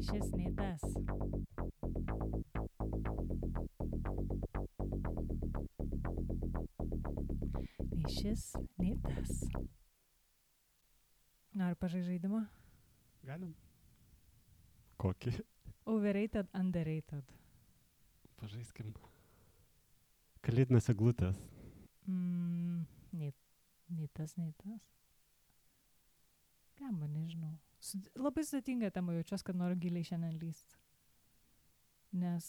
šis, nei tas. Nei šis, nei tas. Noriu pažaisti žaidimą? Galim. Kokį? Overrated, underrated. Pažaiskim. Kalėdinės eglutės. Nei tas, nei tas. Gamba, nežinau. Labai sudėtinga tema, jaučiuosi, kad noriu giliai šiandien lyst. Nes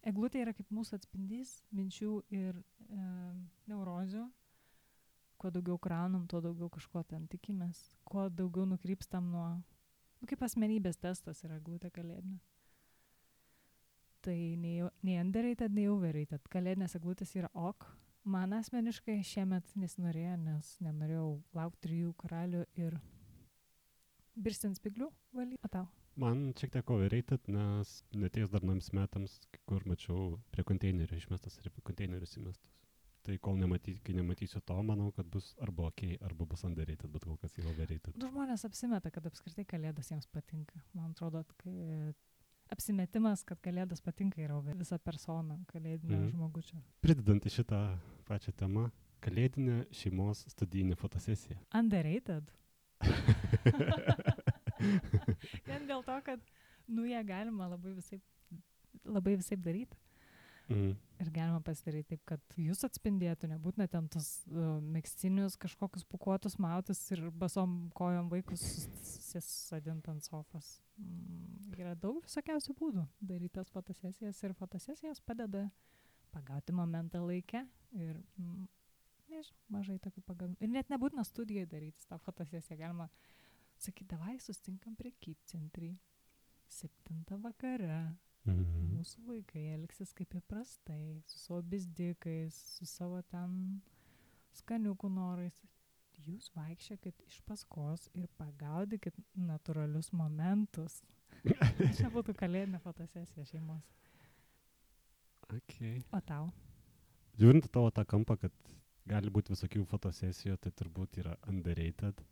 eglutė yra kaip mūsų atspindys minčių ir neurozių. Kuo daugiau kraunam, tuo daugiau kažko ten tikimės. Kuo daugiau nukrypstam nuo... kaip asmenybės testas yra eglutė kalėdinė. Tai nei underrated, nei overrated. Kalėdinės eglutės yra ok. Man asmeniškai šiemet nesinorėjo, nes nenorėjau laukti 3 karalių ir birstint spiglių valyti. O tau? Man šiek tiek overrated, nes neteis dar nams metams, kur mačiau prie konteinerio išmestas ir prie konteinerius įmestas. Tai kai nematysiu to, manau, kad bus arba ok, arba bus underrated, bet kol kas yra overrated. Žmonės apsimeta, kad apskritai kalėdas jiems patinka. Man atrodo, kad apsimetimas, kad kalėdas patinka, yra visa persona kalėdinio žmogučio. Pridedant į šitą pačią temą, kalėdinė šeimos studijinė fotosesija. Underrated? Vien dėl to, kad ją galima labai visaip daryti. Ir galima pasidaryti taip, kad jūs atspindėtų, nebūtina ten tos megztinius kažkokius pukuotus mautus ir basom kojom vaikus susadint ant sofos. Yra daug visokiausių būdų daryti tas fotosesijas ir fotosesijos padeda pagauti momentą laikę ir nežinau, mažai tokių pagavimų. Ir net nebūtina studijai daryti tą fotosesiją. Galima sakyti, davai sustinkam prekybcentrį 7 vakare. Mūsų vaikai elgsis kaip įprastai, su savo bizdikais, su savo ten skaniukų norais. Jūs vaikščiokit iš paskos ir pagaudykit natūralius momentus. Čia būtų kalėdinė fotosesija šeimos. Okay. O tau? Žiūrint tavo tą kampą, kad gali būti visokių fotosesijų, tai turbūt yra underrated,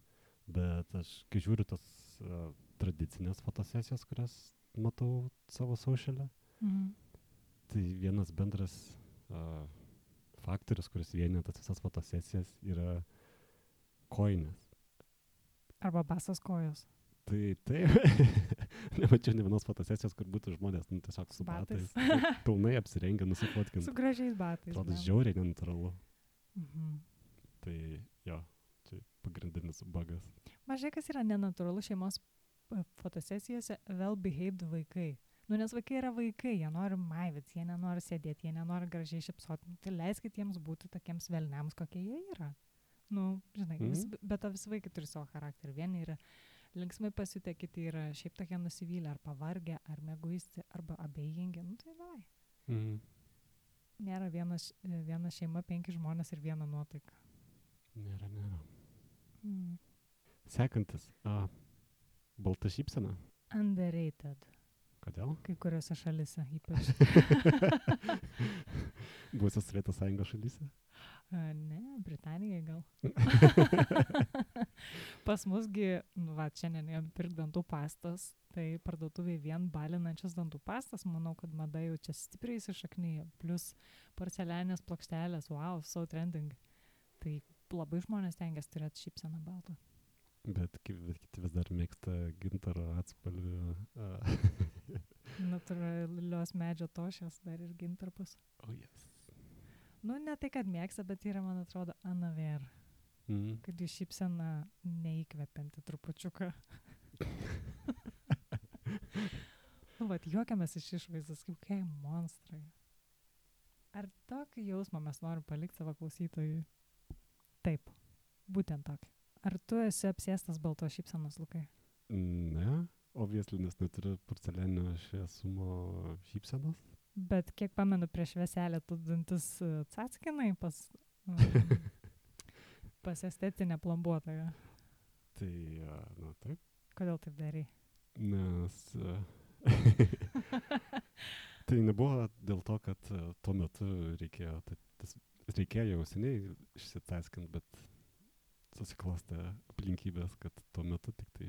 bet aš, kai žiūriu tos tradicinės fotosesijos, kurias matau savo socialę, tai vienas bendras faktorius, kuris vienija tas visas fotosesijas, yra kojinės. Arba basas kojos. Tai taip, nemačiau ne vienos fotosesijos, kur būtų žmonės tiesiog su batais. Pilnai apsirengę, nusifotkint. Su gražiais batais. Atrodo žiauriai nenatūralu. Tai jo, čia pagrindinis bugas. Mažai kas yra nenatūralu šeimos fotosesijose well-behaved vaikai. Nes vaikai yra vaikai, jie nori maivytis, jie nenori sėdėti, jie nenori gražiai šipsoti. Tai leiskit jiems būti tokiems velniams, kokie jie yra. Žinai, bet to visi vaikai turi savo charakterį. Vieni yra linksmai pasiutę, kiti yra šiaip tokie nusivylę, ar pavargę, ar mieguisti, arba abejingi. Tai davai. Nėra viena šeima, 5 žmonės ir viena nuotaika. Nėra. Sekantis. Balta šypsena. Underrated. Kodėl? Kai kuriuose šalise ypač. Buvusios Sovietų Sąjungos šalyse? Ne, Britanijai gal. Pas musgi, šiandien pirk dantų pastas, tai parduotuviai vien balinančias dantų pastas, manau, kad mada jau čia stipriai įsišaknyja, plus porcelianės plokštelės, wow, so trending. Tai labai žmonės tengiasi turėti šypseną baltą. Bet kiti vis dar mėgsta gintaro atspalvių. Natūralios medžio tošės dar ir gintarpus. Oh, yes. Ne tai, kad mėgsta, bet yra, man atrodo, anaver. Kad jų šypsena neįkvepianti trupučiuką. Juokiamės iš išvaizdos, kaip kokie monstrai. Ar tokį jausmą mes norim palikti savo klausytojui? Taip, būtent tokį. Ar tu esi apsėstas baltos šypsenos, Lukai? Ne, obviously, nes neturiu porcelianinio šviesumo šypsenos. Bet kiek pamenu, prieš švieselę tu dantis cackinai pas estetinę plombuotoją. Tai, taip. Kodėl taip darai? Nes tai nebuvo dėl to, kad tuo metu reikėjo jau seniai išsitaskint, bet susiklostė aplinkybės, kad tuo metu tik tai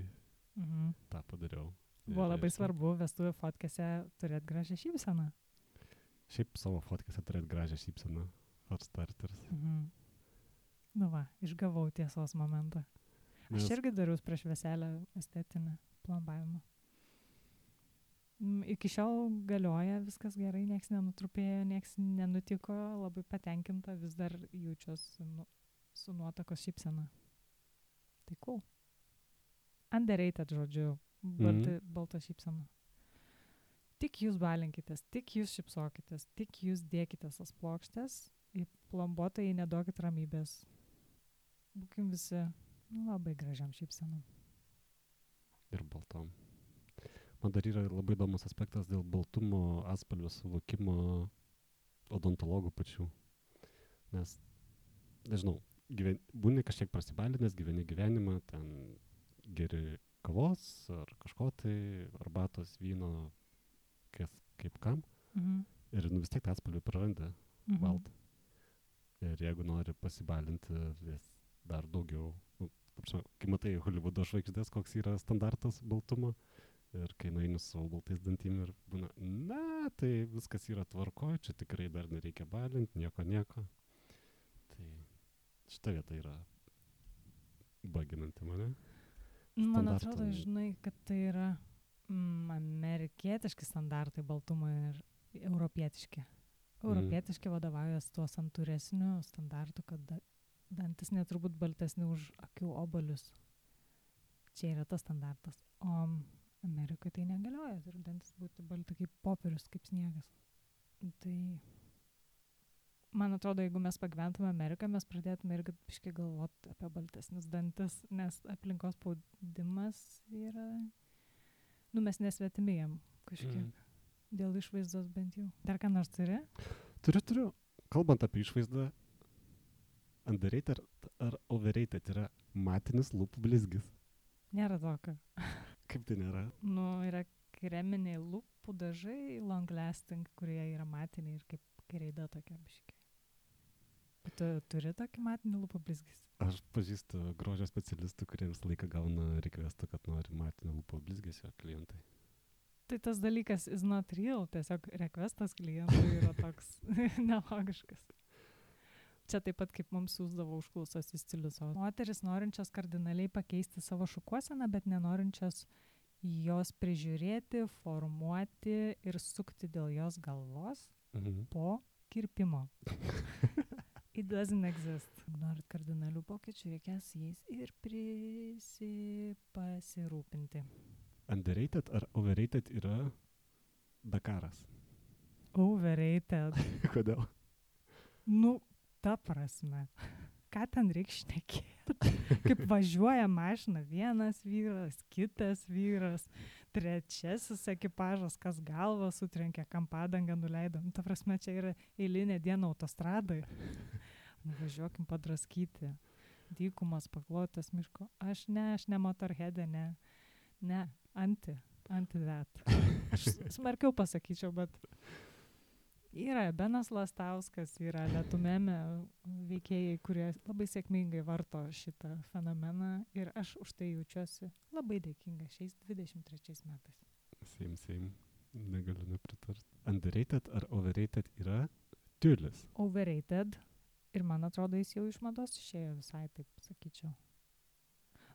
tą padariau. Buvo labai svarbu vestuvių fotkėse turėti gražią šypseną. Šiaip savo fotkėse turėti gražią šypseną. For starters. Nu va, išgavau tiesos momentą. Aš irgi dariau prieš veselę estetinį plombavimą. Iki šiol galioja, viskas gerai, nieks nenutrupėjo, nieks nenutiko, labai patenkinta, vis dar jaučiuosi su nuotakos šypsena. Tai cool. Underrated, žodžiu, balta šypsena. Tik jūs balinkitės, tik jūs šypsokitės, tik jūs dėkitės tas plokštės, į plombuotojai neduokit ramybės. Būkim visi labai gražiam šypsenom. Ir baltom. Man dar yra labai įdomus aspektas dėl baltumo atspalvio suvokimo odontologų pačių. Nes, nežinau, būni kažkiek prasibalinęs, gyveni gyvenimą, ten geri kavos ar kažko tai, arbatos, vyno, kaip kam. Ir vis tiek tą atspalvį praranda baltą. Ir jeigu nori pasibalinti vis dar daugiau, kai matai Hollywoodo žvaigždės, koks yra standartas baltumo, ir kai nueini su savo baltais dantim ir būna, na, tai viskas yra tvarkoj, čia tikrai dar nereikia balinti, nieko. Tai šita vieta yra baginanti mane. Man atrodo, žinai, kad tai yra amerikietiški standartai baltumo ir europietiški. Europietiški vadovaujas tuo santūresniu standartu, kad dantis neturbūt baltesni už akių obolius. Čia yra tas standartas. O Amerikoje tai negalioja, turi dantis būti balti kaip popierius, kaip sniegas. Tai man atrodo, jeigu mes pagyventume Ameriką, mes pradėtume irgi biškai galvoti apie baltesnius dantis, nes aplinkos spaudimas yra, mes nesvetimėjam kažkiek. Dėl išvaizdos bent jau. Dar ką nors turi? Turiu. Kalbant apie išvaizdą, underrated ar overrated yra matinis lūpų blizgis? Nėra tokio. Kaip tai nėra? Yra kreminiai lūpų dažai, long lasting, kurie yra matiniai ir kaip kreida tokia biškiai. Tu turi tokį matinį lūpų blizgis? Aš pažįstu grožio specialistų, kurie visą laiką gauna requestą, kad nori matinį lūpų blizgesio klientai. Tai tas dalykas is not real, tiesiog requestas klientui yra toks nelogiškas. Čia taip pat kaip mums siūsdavo užklausos į stilius. Moteris norinčios kardinaliai pakeisti savo šukuoseną, bet nenorinčios jos prižiūrėti, formuoti ir sukti dėl jos galvos po kirpimo. It doesn't exist. Norit kardinalių pokyčių, reikės jais ir pasirūpinti. Underrated ar overrated yra Dakaras? Overrated. Kodėl? Ta prasme. Ką ten reikia šnekėti? Kaip važiuoja mašina vienas vyras, kitas vyras, trečiasis ekipažas, kas galvą sutrenkė, kam padangą nuleido. Ta prasme, čia yra eilinė diena autostradai. Važiuokim padraskyti. Dykumas, paklotas miško. Aš ne motorheadė, ne, anti that. Aš smarkiau pasakyčiau, bet yra Benas Lastauskas, yra Lietumėme veikėjai, kurie labai sėkmingai varto šitą fenomeną ir aš už tai jaučiuosi labai dėkinga šiais 23 metais. Same. Negaliu nepritarti. Underrated ar overrated yra tiulis? Overrated. Ir man atrodo, jis jau iš mados išėjo visai, taip sakyčiau.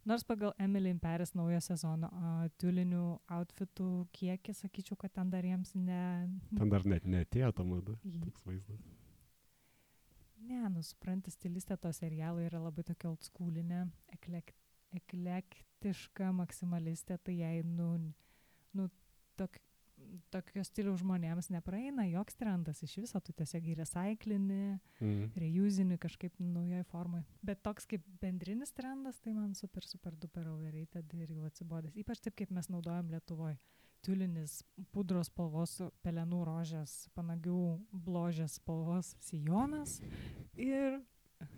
Nors pagal Emily in Paris naujo sezono tiulinių outfitų kiekį, sakyčiau, kad ten dar jiems Ten dar net neatėjo ta mada, toks vaizdas. Ne, supranti, stilistė to serialo yra labai tokia oldschoolinė, eklektiška maksimalistė, tai jai, tokio stiliaus žmonėms nepraeina joks trendas iš viso, tu tiesiog į recyclinį, reusini kažkaip naujoj formai. Bet toks kaip bendrinis trendas, tai man super duper overrated ir jau atsibodęs. Ypač taip, kaip mes naudojam Lietuvoj. Tiulinis pudros spalvos, pelenų rožės, panagių bložės spalvos sijonas ir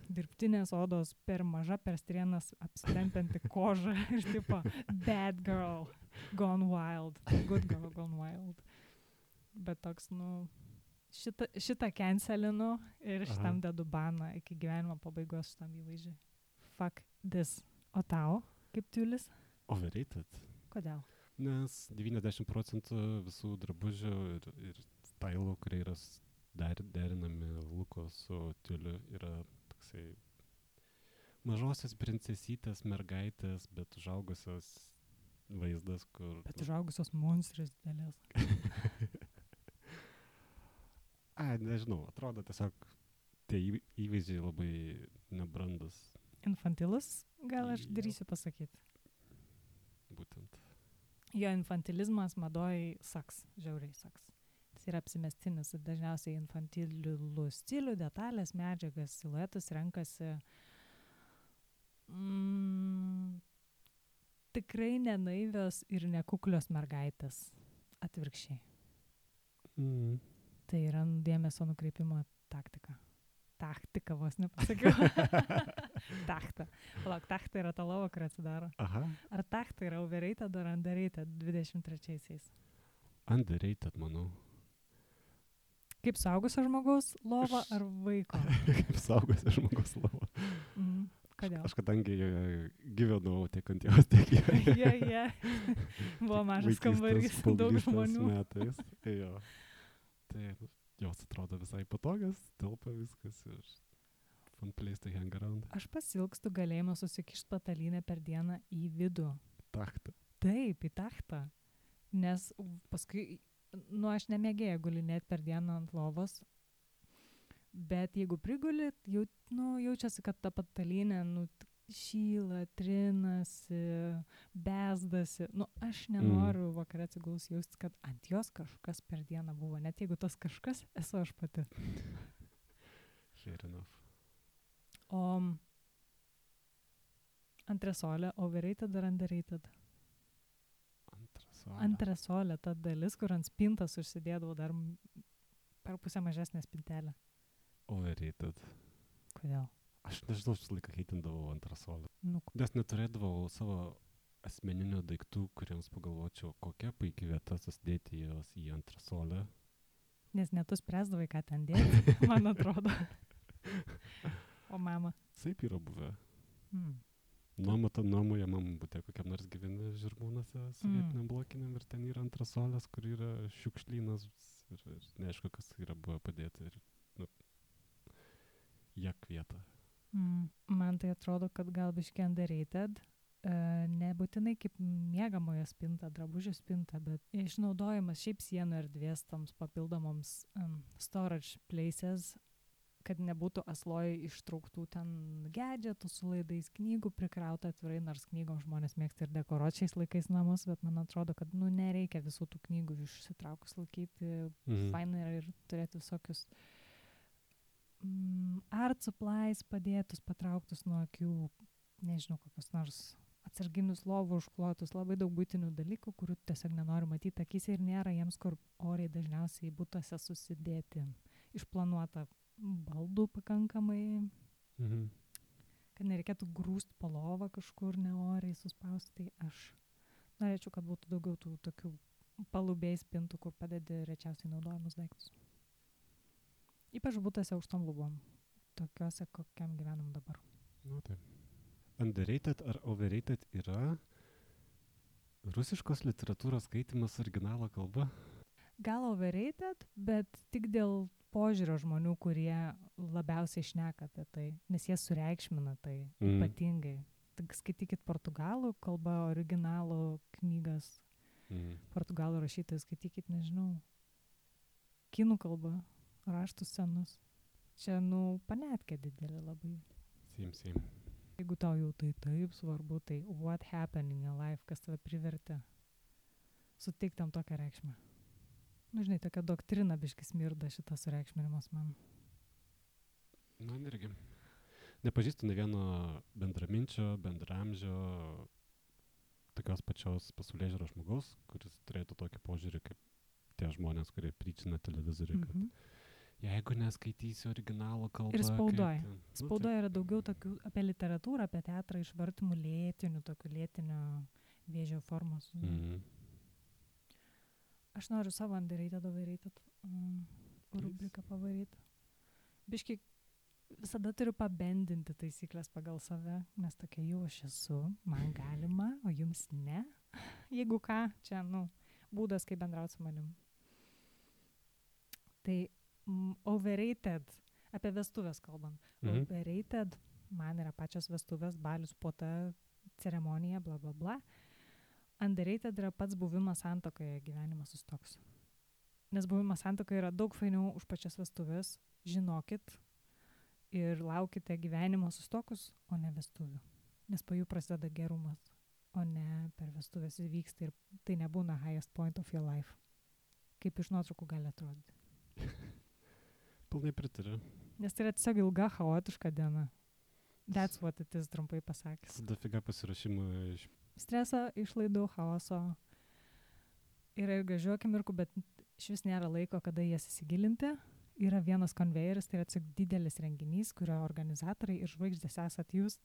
dirbtinės odos per maža, per strienas apsitempianti koža ir tipo bad girl gone wild, good girl gone wild. Bet toks, šitą cancelinu ir šitam dedu baną iki gyvenimo pabaigos šitam įvaizdžiui. Fuck this. O tau, kaip tiulis? Overrated. Kodėl? Nes 90% visų drabužių ir stylų, kurie yra derinami Luko su Tiuliu, yra toksai mažosios princesytės mergaitės, bet užaugusios vaizdas, kur... Bet užaugusios monstrės didelės. Nežinau, atrodo tiesiog tie įvaizdžiai labai nebrandus. Infantilus, gal aš darysiu pasakyti. Būtent. Jo infantilizmas madoj saks, žiauriai saks. Jis yra apsimestinis ir dažniausiai infantilų stilių, detalės, medžiagas, siluetus renkasi tikrai nenaivios ir nekuklios mergaitės. Atvirkščiai. Tai yra dėmesio nukreipimo taktika. Taktika vos nepasakiau. Tachta. Palauk, tachta yra ta lova, kur atsidaro. Aha. Ar tachta yra overrated ar underrated 23-aisiais? Underrated, manau. Kaip suaugusio žmogaus lova ar vaiko? Kaip suaugusio žmogaus lova. Kodėl? Aš kadangi gyvenau tiek ant jos, tiek joje. Jie. Buvo mažas kambarys, daug žmonių. Metais. Jo. Tai jos atrodo visai patogios, telpa viskas ir fun place to hang around. Aš pasilgstu galėjimo susikišti patalynę per dieną į vidų. Tachtą. Taip, į tachtą. Nes paskui, aš nemėgėjau gulinėti per dieną ant lovos, bet jeigu priguli, jaučiasi, kad ta patalynė šyla, trinasi, bezdasi. Aš nenoriu vakare atsiguls jausti, kad ant jos kažkas per dieną buvo, net jeigu tas kažkas esu aš pati. Fair enough. O antresolė, overrated ar underrated? Antresolė, ta dalis, kur ant spintas užsidėdavau dar per pusę mažesnę spintelę. Overrated. Kodėl? Aš nežinau, aš laiką heitindavau antresolę. Nes neturėdavau savo asmeninių daiktų, kuriems pagalvočiau, kokia puikia vieta susidėti jos į antresolę. Nes net tu spręsdavai, ką ten dėti, man atrodo. O mama? Taip yra buvę. Nuomoje mamą būtė kokiam nors gyveni Žirmūnuose sovietiniam blokiniam ir ten yra antresolės, kur yra šiukšlynas ir neaišku, kas yra buvę padėti ir jak vietą. Man tai atrodo, kad gal biškį underrated, nebūtinai kaip miegamojo spinta, drabužių spinta, bet išnaudojimas šiaip sienų erdvės toms papildomoms storage places, kad nebūtų asloj ištrauktų ten gadgetų su laidais, knygų prikrauta atvirai, nors knygom žmonės mėgsta ir dekoruoti šiais laikais namus, bet man atrodo, kad nereikia visų tų knygų išsitraukus laikyti. Faina yra ir turėti visokius art supplies padėtus, patrauktus nuo akių, nežinau, kokius nors atsarginius lovų užklotus, labai daug būtinių dalykų, kurių tiesiog nenoriu matyti akyse ir nėra jiems, kur oriai dažniausiai būtuose susidėti. Išplanuota baldų pakankamai, kad nereikėtų grūst po lovą kažkur neoriai suspausti. Tai aš norėčiau, kad būtų daugiau tų tokių palubėjai spintų, kur padedi rečiausiai naudojamus daiktus. Ypač būtuose aukštom lubom, tokiuose, kokiam gyvenam dabar. Taip. Underrated ar overrated yra rusiškos literatūros skaitymas originalo kalba? Gal overrated, bet tik dėl požiūrio žmonių, kurie labiausiai šneka apie tai, nes jie sureikšmina tai ypatingai. Tik skaitykit portugalų kalba, originalų knygas, portugalų rašytojų skaitykit, nežinau, kinų kalba, raštus senus. Čia, panetkė didelė labai. Same. Jeigu tau jau tai taip svarbu, tai what happened in your life, kas tave privertė suteikti tam tokią reikšmę. Žinai, tokia doktrina biškis smirda šitas sureikšminimas man. Man irgi. Nepažįstu ne vieno bendraminčio, bendramžio, tokios pačios pasaulėžiūros žmogaus, kuris turėtų tokį požiūrį kaip tie žmonės, kurie pryčina televizorių, kad jeigu neskaitysi originalo kalbą... Ir spaudoje. Spaudoje yra daugiau tokių apie literatūrą, apie teatrą išvartymų lėtinių, tokių lėtinio vėžio formos. Aš noriu savo underrated, overrated rubriką pavaryti. Biški visada turiu pabendinti taisyklės pagal save, nes tokia jau aš esu, man galima, o jums ne. Jeigu ką, čia, būdas, kaip bendrauti su manim. Tai overrated, apie vestuvės kalbant. Overrated, man yra pačios vestuvės, balius, puota, ceremonija, bla bla bla. Underrated yra pats buvimas santuokoje, gyvenimas sustoks. Nes buvimas santuokoje yra daug fainiau už pačias vestuvės, žinokit, ir laukite gyvenimo sustokus, o ne vestuvių. Nes po jų prasideda gerumas, o ne per vestuvės įvyksta ir tai nebūna highest point of your life. Kaip iš nuotraukų gali atrodyti. Pilnai pritariu. Nes tai yra tiesiog ilga, chaotiška diena. That's what it is, trumpai pasakęs. Dafiga pasirašymų iš... Streso, išlaidų, chaoso. Yra ir gražių akimirkų, bet iš vis nėra laiko, kada jas įsigilinti. Yra vienas konvejeris, tai yra tiesiog didelis renginys, kurio organizatoriai ir žvaigždės esat jūs.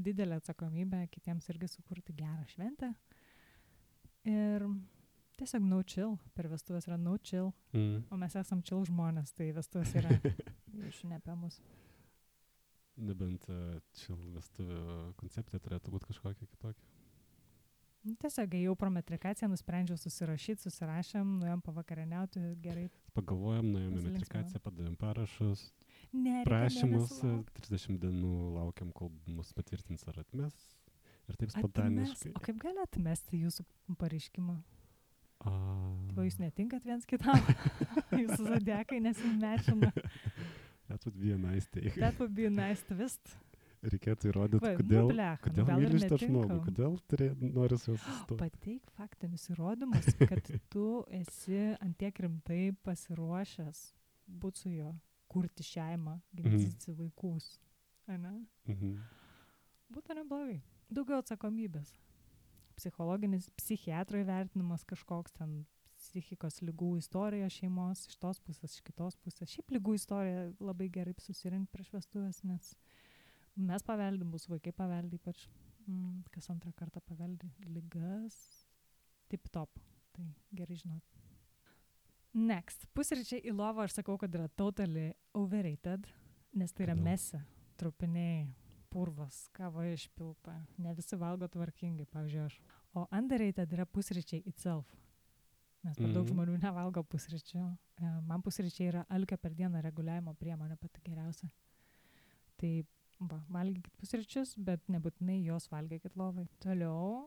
Didelė atsakomybė kitiems irgi sukurti gerą šventę. Ir tiesiog no chill. Per vestuvės yra no chill. O mes esam chill žmonės, tai vestuvės yra iš ne apie mus. Nebent chill vestuvių koncepcija turėtų būti kažkokia kitokia. Tiesiog ėjau pro metrikaciją, nusprendžiau susirašėm, nuėjom pavakarieniauti, gerai. Pagalvojom, nuėjom į metrikaciją, padavėm parašus, prašymus, 30 dienų laukiam, kol mus patvirtins ar atmes. Ir taip spontaniškai. O kaip gali atmesti jūsų pareiškimą? Tai jūs netinkat viens kitam? Jūsų zodiakai nesimečina. That would be a nice take. That would be a nice twist. Reikėtų įrodyti, kodėl myli šitą žmogų, kodėl nori su juos sustot. Pateik faktinius įrodymus, kad tu esi antiek rimtai pasiruošęs būti su juo, kurti šeimą, gimdyti vaikus. Ane? Būtų neblogai. Daugiau atsakomybės. Psichologinis, psichiatro įvertinimas kažkoks ten, psichikos lygų istorija šeimos, iš tos pusės, iš kitos pusės. Šiaip lygų istorija labai gerai susirinkti prieš vestuvės, nes mes paveldim, bus vaikai paveldi, ypač kas antrą kartą paveldi ligas, tip top, tai gerai žinot. Next, pusryčiai į lovą aš sakau, kad yra totally overrated, nes tai yra mesi, trupiniai, purvas, kava išpilta, ne visi valgo tvarkingai, pavyzdžiui aš. O underrated yra pusryčiai itself, nes per daug žmonių nevalgo pusryčių. Man pusryčiai yra alkio per dieną reguliavimo priemonė pati geriausia. Tai valgykit pusryčius, bet nebūtinai jos valgykit lovai. Toliau,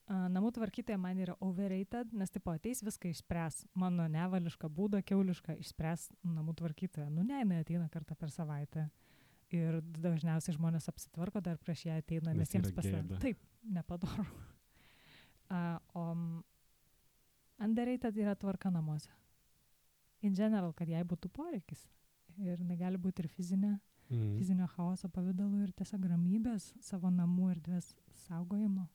namų tvarkytoja man yra overrated, nes tipo ateis viską išspręs. Mano nevališką būdą, kiaulišką išspręs namų tvarkytoja. Ne, jinai ateina kartą per savaitę. Ir dažniausiai žmonės apsitvarko dar prieš ją ateina, nes jiems pasidaro. Taip, nepadoru. O underrated yra tvarka namuose. In general, kad jai būtų poreikis. Ir negali būti ir fizinio chaoso pavidalu ir tiesiog ramybės savo namų erdvės saugojimo.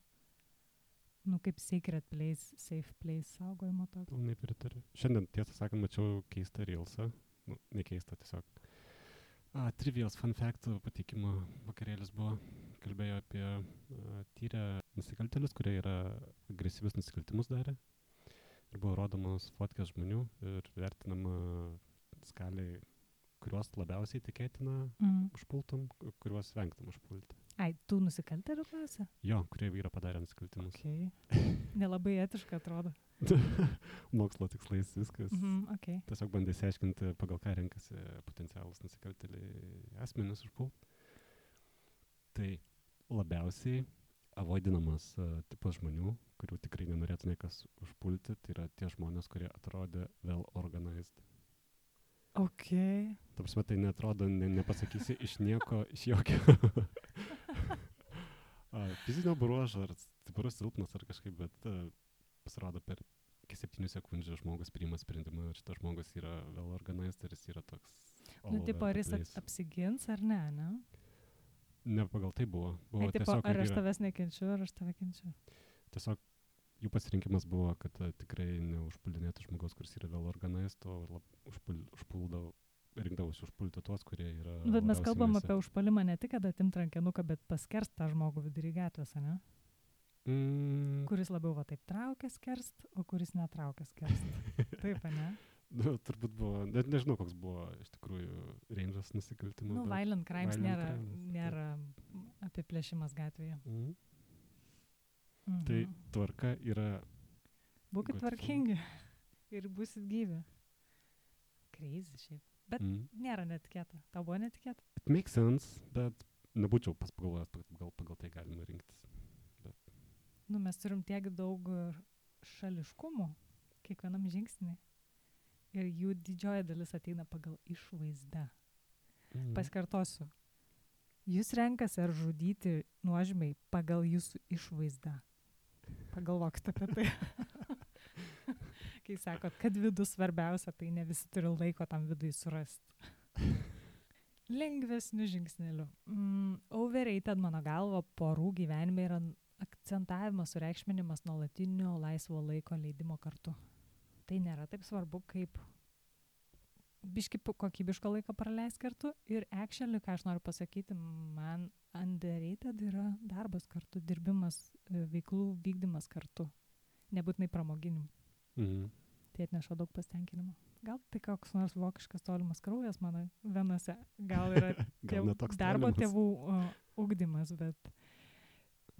Kaip sacred place, safe place saugojimo tokio. Pilnai pritariu. Šiandien, tiesą sakant, mačiau keistą reelsą. Ne keistą, tiesiog. Trivials fun fact pateikimo vakarėlis buvo. Kalbėjo apie tyrę nusikaltėlius, kurie yra agresyvius nusikaltimus darę. Ir buvo rodomos fotkės žmonių ir vertinama skaliai, kuriuos labiausiai tikėtina užpultum, kuriuos vengtum užpulti. Tų nusikaltėlių klasė? Jo, kurie yra padarę nusikaltimus. Okay. Nelabai etiška atrodo. Mokslo tikslais viskas. Okay. Tiesiog bandė išsiaiškinti, pagal ką renkasi potencialus nusikaltėliai asmenis užpult. Tai labiausiai avoidinamas tipas žmonių, kurių tikrai nenorėtų niekas užpulti, tai yra tie žmonės, kurie atrodė well organized. Okay. Ta prasme, tai neatrodo, nepasakysi iš nieko, iš jokio fizinio bruožo, ar stiprus silpnas, ar kažkaip, bet pasirodo per 7 sekundžių žmogus priima sprendimą, ir šitas žmogus yra well organized, ir jis yra toks tipo, ar jis apsigins, ar ne? Ne pagal tai buvo. Tipo, ar aš tavęs nekenčiu, ar aš tave kenčiu? Tiesiog jų pasirinkimas buvo, kad tikrai neužpuldinėtų žmogaus, kuris yra well organized, o rinkdavosi užpulti tuos, kurie yra... Bet mes kalbam apie užpuolimą ne tik, kad atimt rankenuką, bet paskerst tą žmogų vidury gatvės, ne? Kuris labiau taip traukia skerst, o kuris netraukia skerst. Taip, ne? Turbūt buvo, net nežinau, koks buvo iš tikrųjų range'as nusikaltimų. Nu, violent crimes violent nėra apiplėšimas gatvėje. Tai tvarka yra... Būkit tvarkingi ir būsit gyvi. Crazy šiaip. Bet nėra netikėta. Tau buvo netikėta? It makes sense, bet nebūčiau pagalvojęs, pagal tai galima rinktis. Bet... Nu, mes turim tiek daug šališkumų kiekvienam žingsnį. Ir jų didžioji dalis ateina pagal išvaizdą. Pasikartosiu. Jūs renkasi ar žudyti nuožmiai pagal jūsų išvaizdą. Pagalvokite apie tai. Kai sakot, kad vidus svarbiausia, tai ne visi turi laiko tam vidui surasti. Lengvesniu žingsneliu. Overrated, mano galva, porų gyvenime yra akcentavimas, sureikšminimas nuolatinio laisvo laiko leidimo kartu. Tai nėra taip svarbu, kaip biški kokybiško laiko praleis kartu. Ir actually, ką aš noriu pasakyti, man underrated yra darbas kartu, dirbimas, veiklų vykdymas kartu. Nebūtinai pramoginim. Tai atneša daug pasitenkinimo. Gal tai koks nors vokiškas tolimas kraujas mano venose. Gal yra darbo tėvų ugdymas, bet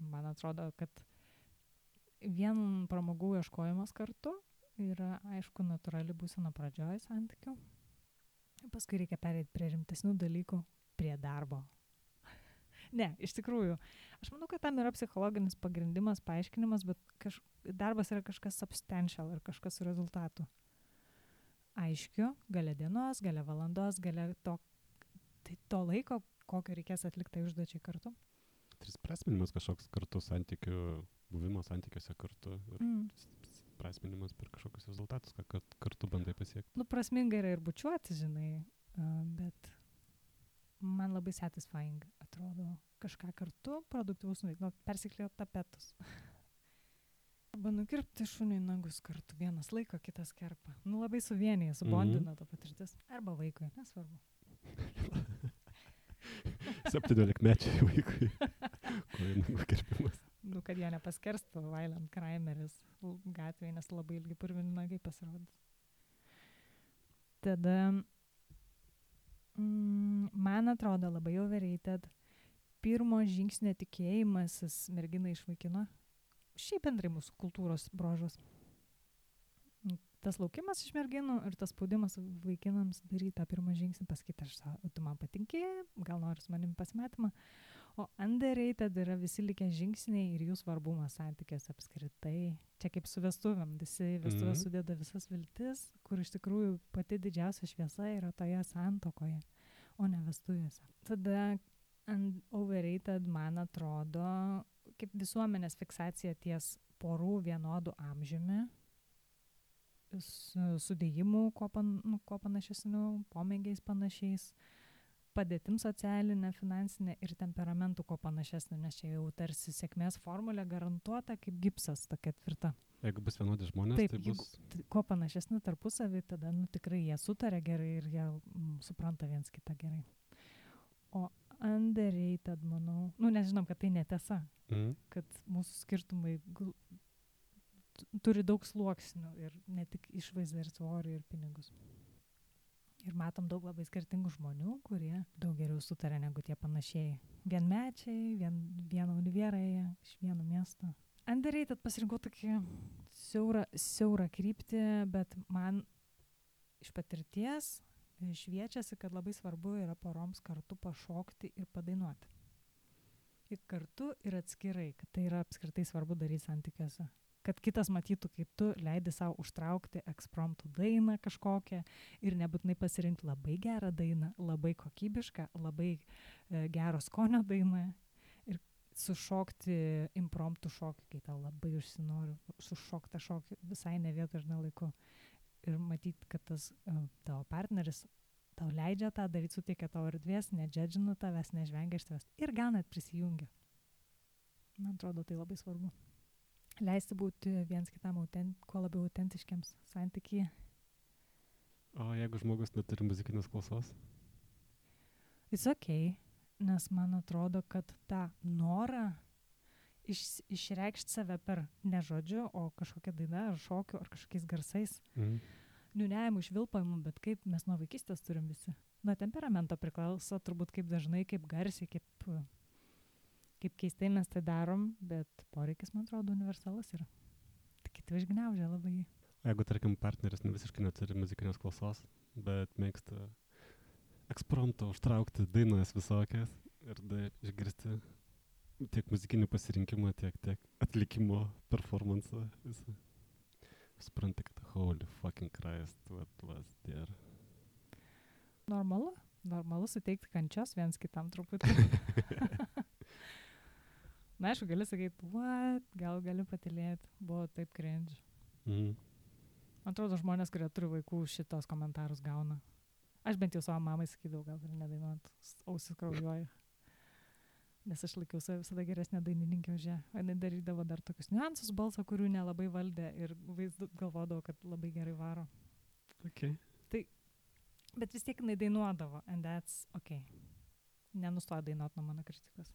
man atrodo, kad vien pramogų ieškojimas kartu yra, aišku, natūrali būsena pradžioj santykių. Paskui reikia pereiti prie rimtesnių dalykų, prie darbo. Ne, iš tikrųjų, aš manau, kad tam yra psichologinis pagrindimas, paaiškinimas, bet darbas yra kažkas substantial ir kažkas su rezultatu. Aiškiu, gale dienos, gale valandos, gale to laiko, kokio reikės atlikti užduočiai kartu. Tai prasminimas kažkoks kartu santykių, buvimo santykiuose kartu. Prasminimas per kažkokius rezultatus, kad kartu bandai pasiekti. Nu, prasminga yra ir bučiuoti, žinai, bet man labai satisfying atrodo kažką kartu, produktyvus nuveikti, persiklijuoti tapetus. Arba nukirpti šuniui nagus kartu, vienas laiko, kitas kerpa. Nu, labai suvienija, subondina ta patirtis. Arba vaikui, nesvarbu. 17-mečiai vaikui. Kojų nagų kirpimas. Nu, kad jie nepaskerstų violent crimeris gatvėje, nes labai ilgi purvini nagai pasirodys. Tada, man atrodo, labai overrated pirmo žingsnio tikėjimasis merginą iš vaikino. Šiaip bendrai mūsų kultūros brožas. Tas laukimas iš merginų ir tas spaudimas vaikinams daryti tą pirmą žingsnį, pasakyti, tu man patinki, gal nori su manim pasimatymą. O underrated yra visi likę žingsniai ir jų svarbumas santykiuose apskritai. Čia kaip su vestuvėm, visi vestuvės sudeda visas viltis, kur iš tikrųjų pati didžiausia šviesa yra toje santuokoje, o ne vestuvėse. Tada overrated, man atrodo, kaip visuomenės fiksacija ties porų vienodų amžiumi, sudėjimų, kuo panašesnių, pomėgiais panašiais, padėtim socialinė, finansinė ir temperamentų kuo panašesnė, nes čia jau tarsi sėkmės formulė garantuota kaip gipsas, tokia tvirta. Jeigu bus vienodi žmonės, taip, tai bus... Kuo panašesni tarpusavį, tada tikrai jie sutarė gerai ir jie supranta viens kitą gerai. O underrated, manau, nežinom, kad tai netiesa, kad mūsų skirtumai turi daug sluoksnių ir ne tik išvaizdą ir svorį ir pinigus. Ir matom daug labai skirtingų žmonių, kurie daug geriau sutarė negu tie panašiai. Vienmečiai, vieno univėrai, iš vieno miesto. Underrated pasirinkau tokį siaurą kryptį, bet man iš patirties šviečiasi, kad labai svarbu yra poroms kartu pašokti ir padainuoti. Ir kartu ir atskirai, kad tai yra apskritai svarbu daryti santykiuose. Kad kitas matytų, kaip tu leidi savo užtraukti ekspromptų dainą kažkokią ir nebūtinai pasirinkti labai gerą dainą, labai kokybišką, labai gero skonio dainą ir sušokti impromptų šokį, kai tau labai užsinori sušoktą šokį visai ne vietoj ir ne laiku. Ir matyti, kad tas tavo partneris tau leidžia tą daryti, suteikia tavo erdvės, nedžedžina tavęs, nežvengia iš tavęs ir gal net prisijungia. Man atrodo, tai labai svarbu. Leisti būti viens kitam kuo labiau autentiškiams santykyje. O jeigu žmogus neturi muzikinės klausos? It's okay, nes man atrodo, kad tą norą išreikšti save per ne žodžiu, o kažkokią dainą ar šokiu ar kažkokiais garsais niūniavimų, švilpavimų, bet kaip mes nuo vaikystės turim visi. Nuo temperamento priklauso turbūt kaip dažnai, kaip garsiai, kaip keistai mes tai darom, bet poreikis, man atrodo, universalus yra. Tik kiti išgniaužia labai jį. O jeigu, tarkim, partneris visiškai neturi muzikinės klausos, bet mėgsta eksprompto užtraukti dainas visokias ir išgirsti tiek muzikinį pasirinkimą, tiek atlikimo performansą visą. Supranti, kad holy fucking Christ, what was there. Normalu suteikti kančios viens kitam truputį. Na, aišku, gali sakyti, what, gal gali patylėti, buvo taip cringe. Man atrodo, žmonės, kurie turi vaikų, šitos komentarus gauna. Aš bent jau savo mamai sakydavau, gal ir nedainuot, ausis kraujuoja. Nes aš laikiau save visada geresnė dainininkė už ją. O jinai darydavo dar tokius niuansus balso, kurių nelabai valdė ir galvodavo, kad labai gerai varo. Okay. Tai, bet vis tiek jinai dainuodavo, and that's okay. Nenustoja dainuot nuo mano kritikos.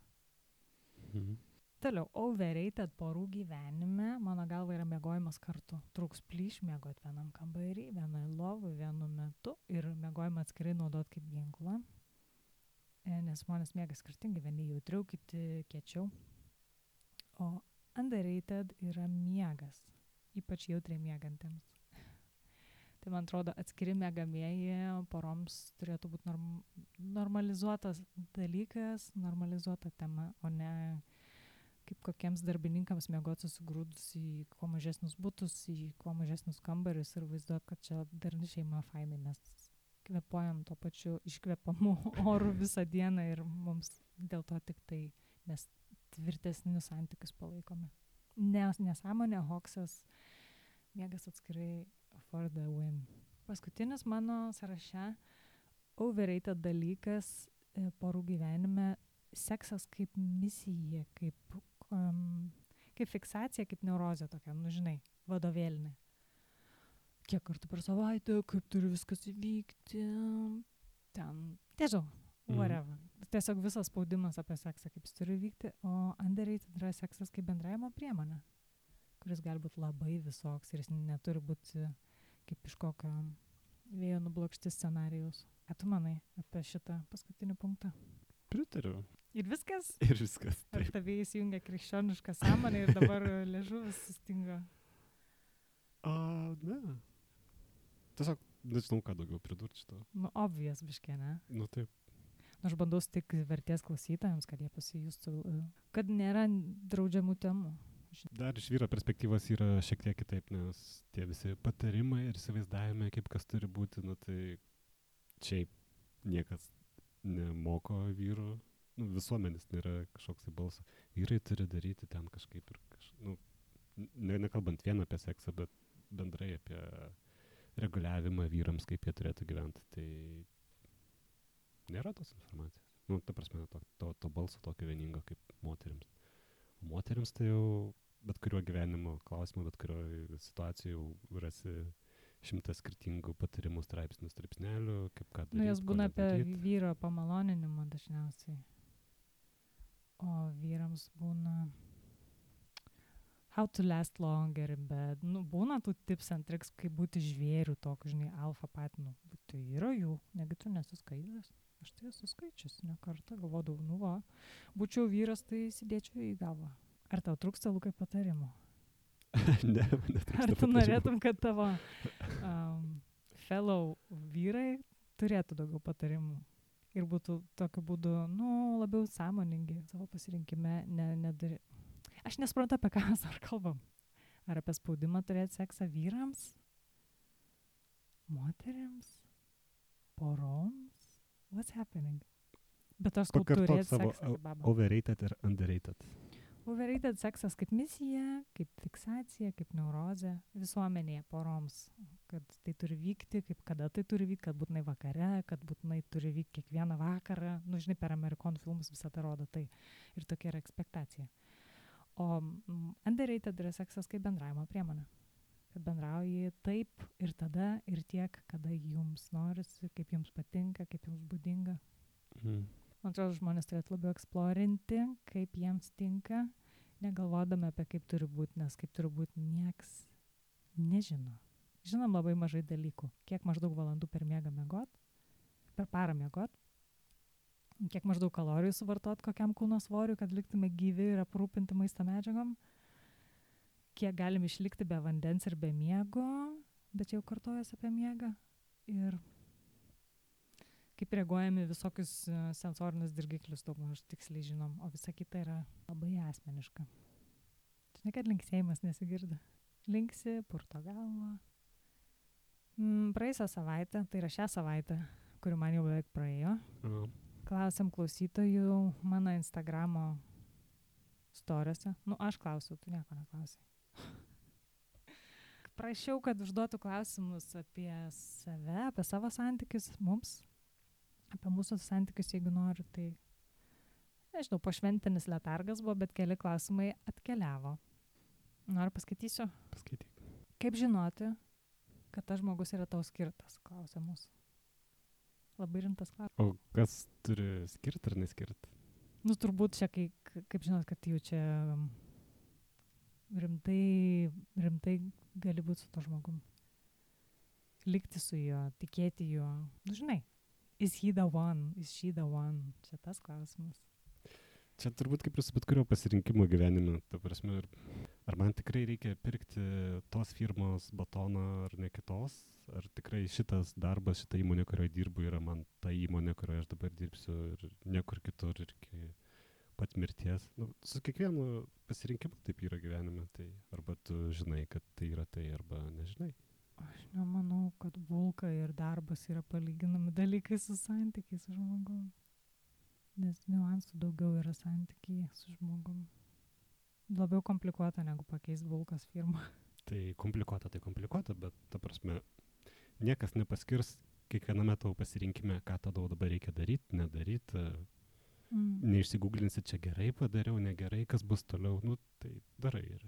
Toliau, overrated porų gyvenime, mano galva, yra miegojimas kartu. Trūks plyš miegot vienam kambarį, vienai lovui, vienu metu ir miegojimą atskirai naudot kaip ginklą. Nes žmonės miega skirtingai, vieni jautriau, kiti kiečiau. O underrated yra miegas, ypač jautriai miegantiems. Tai man atrodo, atskiri miegamieji poroms turėtų būti normalizuotas dalykas, normalizuota tema, o ne kaip kokiems darbininkams miegoti susigrūdus į kuo mažesnius butus, į kuo mažesnius kambarius ir vaizduot, kad čia darni šeima fainai, mes kvėpuojam to pačiu iškvepamu oru visą dieną ir mums dėl to tik tai mes tvirtesnius santykius palaikome. Nesąmonė, hoksas, miegas atskirai for the win. Paskutinis mano sąraše overrated dalykas porų gyvenime, seksas kaip misija, kaip fiksacija, kaip neurozė tokia, žinai, vadovėlinė. Kiek kartų per savaitę, kaip turi viskas įvykti, ten, tiesiog, whatever. Tiesiog visas spaudimas apie seksą, kaip jis turi vykti, o underrated yra seksas kaip bendravimo priemonė, kuris gali būti labai visoks ir jis neturi būti kaip iš kokio vėjo nublokšti scenarijaus. Ką tu manai apie šitą paskutinį punktą? Pritariu. Ir viskas? Ir viskas. Ar tavai įsijungia krikščionišką sąmonę ir dabar liežuvis sustingo? Ne. Tiesiog nežinau, ką daugiau pridurti šito. Obvious biškė, ne? Taip. Aš bandau tik vertės klausytojams, kad jie pasijustų, kad nėra draudžiamų temų. Dar iš vyro perspektyvos yra šiek tiek kitaip, nes tie visi patarimai ir įsivaizdavimai, kaip kas turi būti, tai šiaip niekas nemoko vyrų. Visuomenės nėra kažkoks balsas. Vyrai turi daryti ten kažkaip ir nekalbant vien apie seksą, bet bendrai apie reguliavimą vyrams, kaip jie turėtų gyventi. Tai nėra tos informacijos. Ta prasme, to balso tokio vieningo kaip moterims. O moterims tai jau bet kuriuo gyvenimo klausimu, bet kuriuo situacijų jau rasi 100 skirtingų patarimų straipsnių, kaip ką daryti. Jos būna apie vyro pamaloninimą dažniausiai. O vyrams būna how to last longer in bed. Būna tų tips and tricks, kaip būti žvėrių tokiu, žinai, alfa patinu. Tai yra jų, negi tu nesuskaitęs. Aš tai esu skaičius, ne kartą galvodavau, būčiau vyras, tai sėdėčiau į galvą. Ar tau trūksta, Lukai, patarimų? Ne, ar tu norėtum, kad tavo fellow vyrai turėtų daugiau patarimų? Ir būtų tokiu būdu, labiau sąmoningi savo pasirinkime. Aš nesuprantu, apie ką mes ar kalbam. Ar apie spaudimą turėti seksą vyrams? Moterims? Poroms? What's happening? Bet aš skau turėti seksą kaip baba. Overrated ir underrated. Overrated seksas kaip misija, kaip fiksacija, kaip neurozė visuomenėje poroms, kad tai turi vykti, kaip kada tai turi vykti, kad būtinai vakare, kad būtinai turi vykti kiekvieną vakarą. Žinai, per amerikonų filmus visą tai rodo tai. Ir tokia yra ekspektacija. O underrated yra seksas kaip bendravimo priemonė. Kad bendrauji taip ir tada ir tiek, kada jums norisi, kaip jums patinka, kaip jums būdinga. Man atrodo, žmonės turėtų labiau eksplorinti, kaip jiems tinka, negalvodami apie kaip turi būti, nes kaip turi būti nieks nežino. žinom labai mažai dalykų. Kiek maždaug valandų per parą miegot, kiek maždaug kalorijų suvartot kokiam kūno svoriui, kad liktume gyvi ir aprūpinti maisto medžiagom, kiek galim išlikti be vandens ir be miego, bet jau kartojas apie miegą. Ir kaip reaguojame visokius sensorinius dirgiklius, daug maž tiksliai žinom, o visa kita yra labai asmeniška. Žinai, kad linksėjimas nesigirdi. Linksi, purto galvą. Praėjusią savaitę, tai yra šią savaitę, kuri man jau beveik praėjo, klausiam klausytojų mano Instagramo storiuose. Aš klausiau, tu nieko neklausai. Prašiau, kad užduotų klausimus apie save, apie savo santykius mums, apie mūsų santykius, jeigu nori, tai nežinau, pošventinis letargas buvo, bet keli klausimai atkeliavo. Noriu paskaitysiu? Paskaityk. Kaip žinoti, kad tas žmogus yra tau skirtas, klausia mūsų. Labai rimtas klausimas. O kas turi skirti ar neskirti? Turbūt čia, kaip žinot, kad jau čia rimtai gali būti su to žmogum. Likti su juo, tikėti juo. Žinai, is he the one, is she the one? Čia tas klausimas. Čia turbūt kaip ir su bet kurio pasirinkimo gyvenime, ta prasme, ar man tikrai reikia pirkti tos firmos batoną ar ne kitos, ar tikrai šitas darbas, šita įmonė, kurioje dirbu, yra man ta įmonė, kurioje aš dabar dirbsiu ir niekur kitur ir iki pat mirties. Su kiekvienu pasirinkimu taip yra gyvenime, tai arba tu žinai, kad tai yra tai, arba nežinai. Aš nemanau, kad bulka ir darbas yra palyginami dalykai su santykiais su žmogum. Nes niuansų daugiau yra santykiai su žmogum. Labiau komplikuota negu pakeist bulkos firmą. Tai komplikuota, bet ta prasme, niekas nepaskirs kiekviename tavo pasirinkime, ką tau dabar reikia daryti, nedaryti. Neišsigūglinsi, čia gerai padariau, negerai, kas bus toliau. Tai darai ir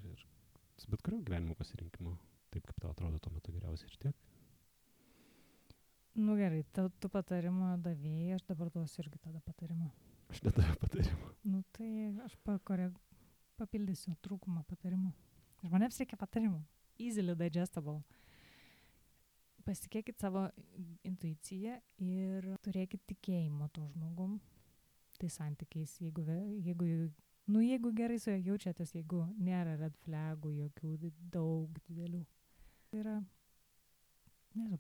su bet kurio gyvenimo pasirinkimu. Taip, kaip tau atrodo tuo metu geriausiai ir tiek. Gerai, tu patarimo davėjai, aš dabar duosiu irgi tada patarimą. Aš nedaviau patarimą. Tai aš papildysiu trūkumą patarimų. Žmonėms reikia patarimų. Easily digestible. Pasitikėkit savo intuiciją ir turėkit tikėjimo to žmogum. Tai santykiais, jeigu gerai su juo jaučiatės, jeigu nėra red flagų, jokių daug didelių. Tai yra, nežinau,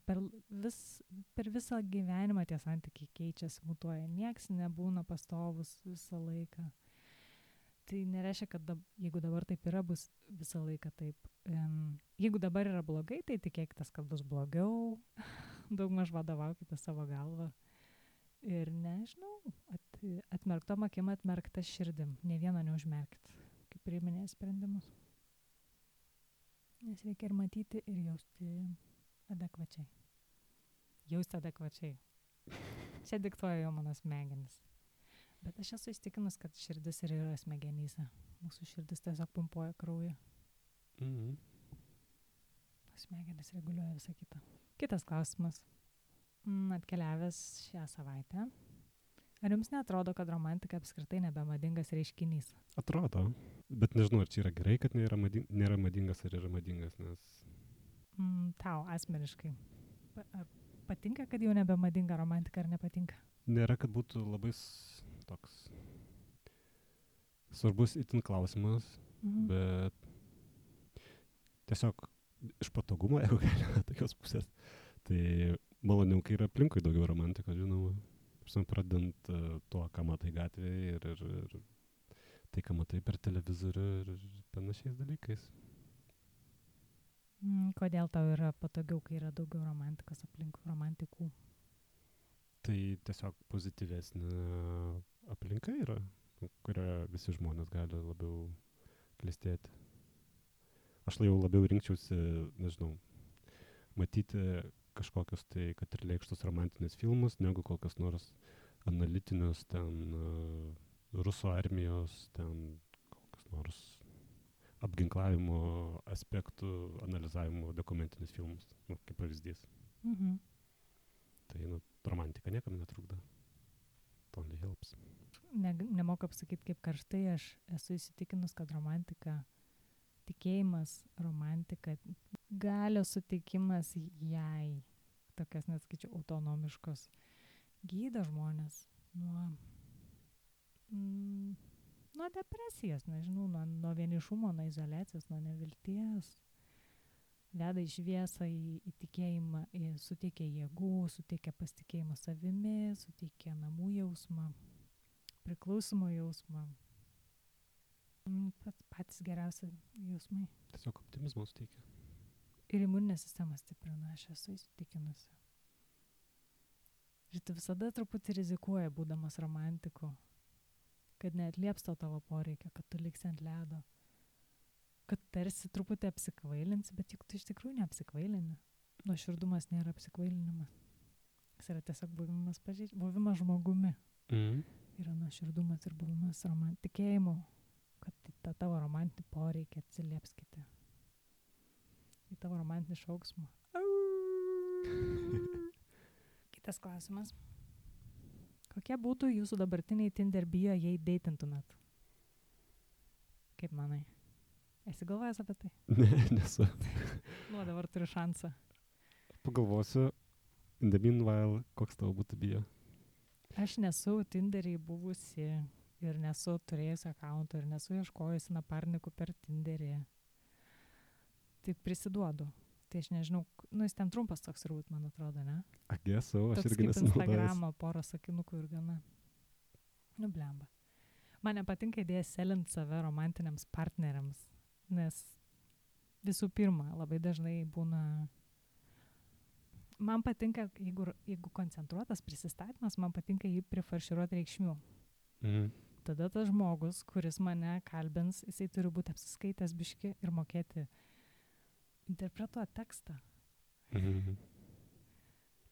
per visą gyvenimą tie santykiai keičiasi, mutuoja. Nieks nebūna pastovus visą laiką. Tai nereiškia, kad jeigu dabar taip yra, bus visą laiką taip. Jeigu dabar yra blogai, tai tikėkitės, kad bus blogiau. Daugmaž vadovaukite savo galvą. Ir nežinau, atmerktom akim, atmerkta širdim. Ne vieno neužmerkit, kaip priiminėja sprendimus. Nes reikia ir matyti, ir jausti adekvačiai. Jausti adekvačiai. Čia diktuoja jau mano smegenis. Bet aš esu įstikinus, kad širdis ir yra smegenyse. Mūsų širdis tiesiog pumpuoja kraują. Smegenis reguliuoja visą kitą. Kitas klausimas. Atkeliavęs šią savaitę. Ar jums neatrodo, kad romantika apskritai nebemadingas reiškinys? Atrodo. Bet nežinau, ar čia yra gerai, kad nėra madingas, ar yra madingas, nes... Tau asmeniškai. Ar patinka, kad jau nebemadinga romantika, ar nepatinka? Nėra, kad būtų labai toks svarbus itin klausimas, bet tiesiog iš patogumo, jeigu galime tokios pusės, tai maloniau, kai yra aplinkui daugiau romantikos, žinoma. Pradedant tuo, ką matai gatvėje ir tai, ką matai per televizorių ir panašiais dalykais. Kodėl tau yra patogiau, kai yra daugiau romantikos aplinkui, romantikų? Tai tiesiog pozityvesnė aplinka yra, kurioje visi žmonės gali labiau klestėti. Aš jau labiau rinkčiausi, nežinau, matyti kažkokius tai, kad ir lėkštus romantinius filmus, negu kokius nors analitinius, ten rusų armijos, ten kokius nors apginklavimo aspektų analizavimo dokumentinius filmus, kaip pavyzdys. Tai romantika niekam netrukdo. It only helps. Nemoku apsakyti, kaip karštai aš esu įsitikinus, kad romantika, tikėjimas, romantika galios suteikimas jai, tokias net skaičiu autonomiškos, gydo žmonės nuo depresijos, nežinau, nuo vienišumo, nuo izoliacijos, nuo nevilties. Veda į šviesą, į tikėjimą, suteikia jėgų, suteikia pasitikėjimą savimi, suteikia namų jausmą, priklausimo jausmą. Patys geriausi jausmai. Tiesiog optimizmo suteikia. Ir imuninė sistema stiprina, aš esu įsitikinusi. Ir tu visada truputį rizikuoji, būdamas romantiku, kad neatlieps tavo poreikio, kad tu liksi ant ledo, kad tarsi truputį apsikvailinsi, bet juk tu iš tikrųjų neapsikvailini. Nuoširdumas nėra apsikvailinimas. Jis yra tiesiog buvimas žmogumi. Yra nuoširdumas ir buvimas tikėjimu, kad tą tavo romantinį poreikį atsilieps kiti. Į tavo romantinį šauksmą. Kitas klausimas. Kokie būtų jūsų dabartiniai Tinder bio, jei deitintumėt? Kaip manai? Esi galvojęs apie tai? Ne, nesu. Dabar turiu šansą. Pagalvosiu, in the meanwhile, koks tavo būtų bio? Aš nesu Tinderį buvusi ir nesu turėjusi akaunto ir nesu ieškojusi naparnikų per Tinderį. Tik prisiduodu. Tai aš nežinau, jis ten trumpas toks turbūt, man atrodo, ne? Aš toks irgi kaip nesinaudojęs. Instagramo, porą sakinukų ir gana. Blemba. Man nepatinka idėja selint save romantiniams partneriams, nes visų pirma, labai dažnai būna... Man patinka, jeigu koncentruotas prisistatymas, man patinka jį prifarširuoti reikšmių. Tada tas žmogus, kuris mane kalbins, jisai turi būti apsiskaitęs biški ir mokėti interpretuoti tekstą.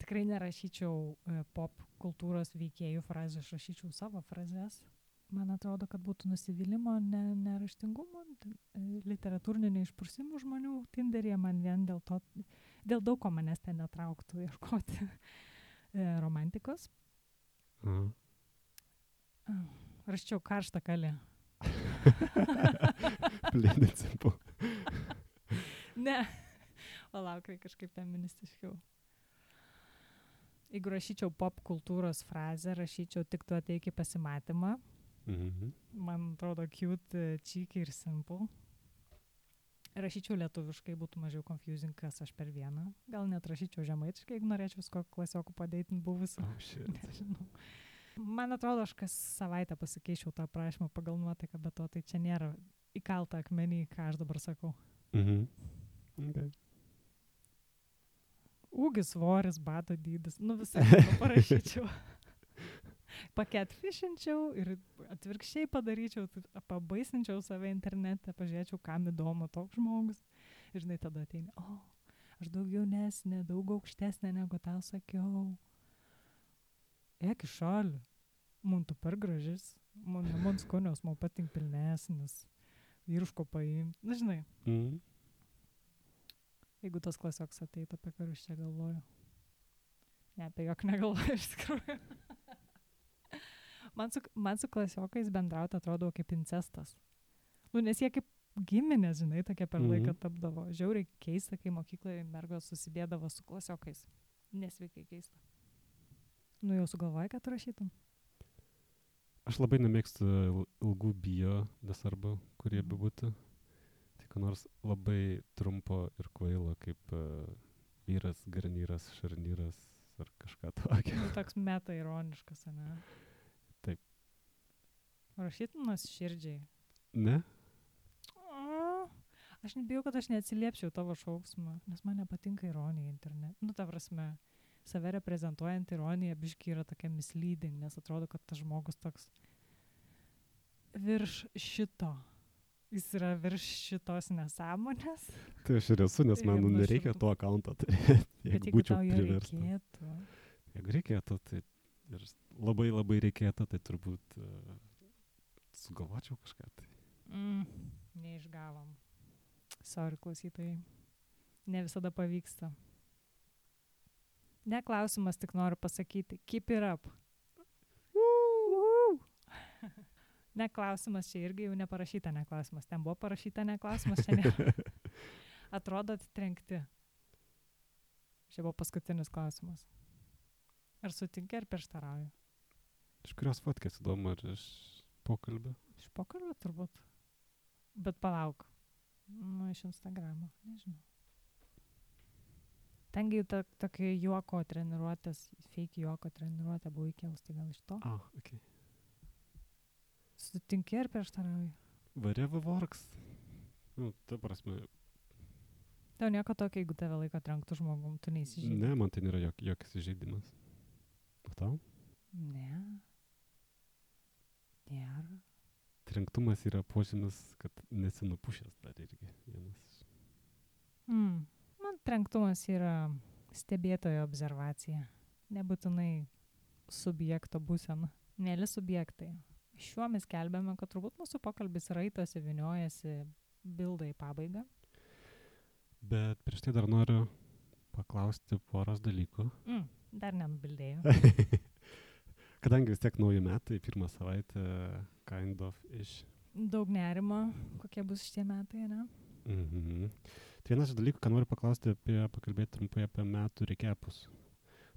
Tikrai nerašyčiau pop kultūros veikėjų frazių, aš rašyčiau savo frazes. Man atrodo, kad būtų nusivylimo, neraštingumo, literatūrinių neišprusimų žmonių Tinderyje, man vien dėl daug ko manęs ten netrauktų ieškoti romantikos. Raščiau karštą kalę. Plėdinsimu. Ne. Palauk, kažkaip feministiškiau. Jeigu rašyčiau pop kultūros frazę, rašyčiau tik tu ateik į pasimatymą. Man atrodo cute, cheeky ir simple. Rašyčiau lietuviškai, būtų mažiau confusing, kas aš per vieną. Gal net rašyčiau žemaitiškai, jeigu norėčiau visko klasiokų padeitin buvusiu. Nežinau. Man atrodo, aš kas savaitę pasikeičiau tą prašymą pagal nuotaiką, bet to tai čia nėra įkalta akmenį, ką aš dabar sakau. Okay. Ūgis, svoris, bato dydis, visai parašyčiau. Paketfishinčiau ir atvirkščiai padaryčiau, pabaisinčiau save internete, pažiūrėčiau, kam įdomu toks žmogus. Ir žinai, tada ateini, aš daug jaunesnė, daug aukštesnė negu tau sakiau. Eik iš šalių, man tu per gražis, man skonios, man patink pilnesnis, vyruško paimti, žinai. Jeigu tas klasioks ateitų, apie karus čia galvoju. Ne, apie jok negalvoju iš tikrųjų. Man su klasiokais bendrauti atrodo kaip incestas. Nes jie kaip giminės, žinai, tokie per laiką tapdavo. Žiauriai keista, kai mokykloje mergos susidėdavo su klasiokais. Nesveikai keista. Jau sugalvoji, kad rašytum? Aš labai nemėgstu ilgų bio, nesvarbu, kurie bebūtų. Tik nors labai trumpo ir kvailo, kaip vyras, garnyras, šarnyras ar kažką tokio. Toks meta ironiškas, ne? Taip. Rašytum širdžiai? Ne? Aš nebijau, kad aš neatsiliepčiau tavo šauksmą, nes man nepatinka ironija internete. Ta prasme, save reprezentuojant ironija biški yra tokia misleading, nes atrodo, kad tas žmogus toks virš šito. Jis yra virš šitos nesąmonės. Tai aš ir esu, nes man nereikia to akaunto turėti, jeigu būčiau priverstas. Jeigu reikėtų, tai ir labai labai reikėtų, tai turbūt sugalvočiau kažką. Tai. Neišgavom. Sorry, klausytojai. Ne visada pavyksta. Ne klausimas, tik noriu pasakyti. Keep it up. Ne klausimas, čia irgi jau neparašyta ne klausimas. Ten buvo parašyta ne klausimas, čia ne. Atrodot trenkti. Čia buvo paskutinis klausimas. Ar sutinki, ar prieštarauji? Iš kurios fotkės įdomu, ar iš pokalbio? Iš pokalbio turbūt. Bet palauk. Nu, iš Instagramo. Nežinau. Tengi jau tokia juoko treniruotės, fake juoko treniruotė buvo įkėlus, tai gal iš to? Okay. Sutinki ar prieštarauji? Whatever works. Nu, ta prasme. Tau nieko tokio, jeigu tave laiko trenktų žmogum, tu neįsižeidi? Ne, man tai nėra jokis įžeidimas. O tau? Ne. Nėra. Trenktumas yra požymis, kad nesi nupušęs dar irgi vienas. Man trenktumas yra stebėtojo observacija. Nebūtinai subjekto būsena. Mėly subjektai. Šiuo mes kelbėme, kad turbūt mūsų pokalbis raitosi, viniojasi, bilda į pabaigą. Bet prieš tai dar noriu paklausti poros dalykų. Dar nenubildėjau. Kadangi vis tiek nauji metai, pirmą savaitę, kind of ish. Daug nerimo, kokie bus šitie metai, ne? Tai vienas iš dalykų, ką noriu pakalbėti trumpai apie metų rekepus.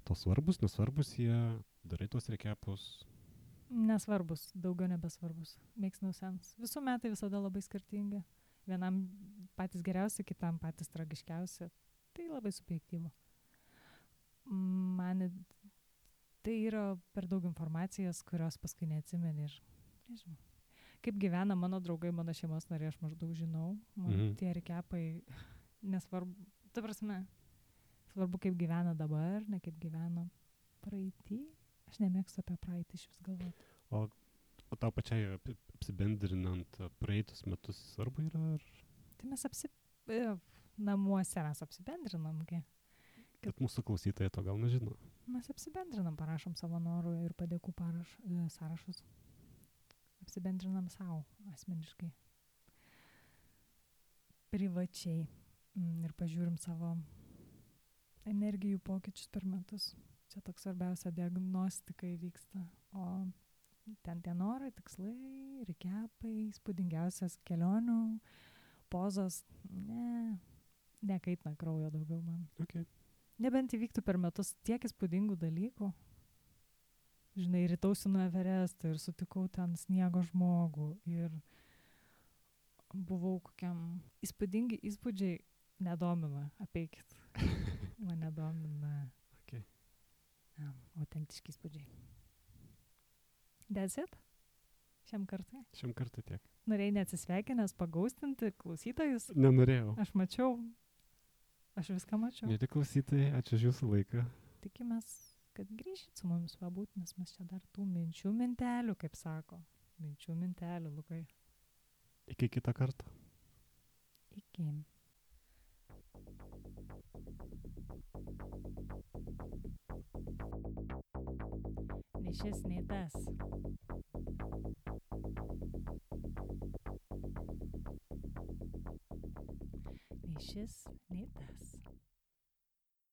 To svarbus, nesvarbus jie, darai tos rekepus? Nesvarbus, daugiau nebesvarbus. Makes no sense. Visų metai visada labai skirtingi. Vienam patys geriausi, kitam patys tragiškiausi. Tai labai subjektyvu. Man tai yra per daug informacijos, kurios paskui neatsimeni ir nežinau. Kaip gyvena mano draugai, mano šeimos nariai, aš maždaug žinau. Tie rekepai nesvarbu. Ta prasme, svarbu kaip gyvena dabar, ne kaip gyveno praeitį. Aš nemėgstu apie praeitį iš vis galvoti. O tau pačiai apsibendrinant praeitus metus svarbu yra? Ar? Tai mes namuose mes apsibendrinam. Bet mūsų klausytojai to gal nežino. Mes apsibendrinam, parašom savo norų ir padėkų sąrašus. Apsibendrinam savo asmeniškai. Privačiai. Ir pažiūrim savo energijų pokyčius per metus. Čia toks svarbiausia diagnostika įvyksta. O ten tie norai, tikslai, rekepai, įspūdingiausias kelionių, pozos, nekaitina kraujo daugiau man. Okay. Nebent įvyktų per metus tiek įspūdingų dalykų. Žinai, rytausi nuo Everesto ir sutikau ten sniego žmogų ir buvau kokiam įspūdingi įspūdžiai nedomina, apeikit. Mane domina. Okay. Autentiški įspūdžiai. That's it? Šiam kartui? Šiam kartui tiek. Norėjai neatsisveikinęs pagaustinti klausytojus? Nenorėjau. Aš mačiau. Aš viską mačiau. Mėly klausytojai, ačiū už jūsų laiką. Tikimės, kad grįšit su mumis pabūt, nes mes čia dar tų minčių mintelių, kaip sako. Minčių mintelių, Lukai. Iki kitą kartą. Iki. Nei šis, nei tas. Nei šis,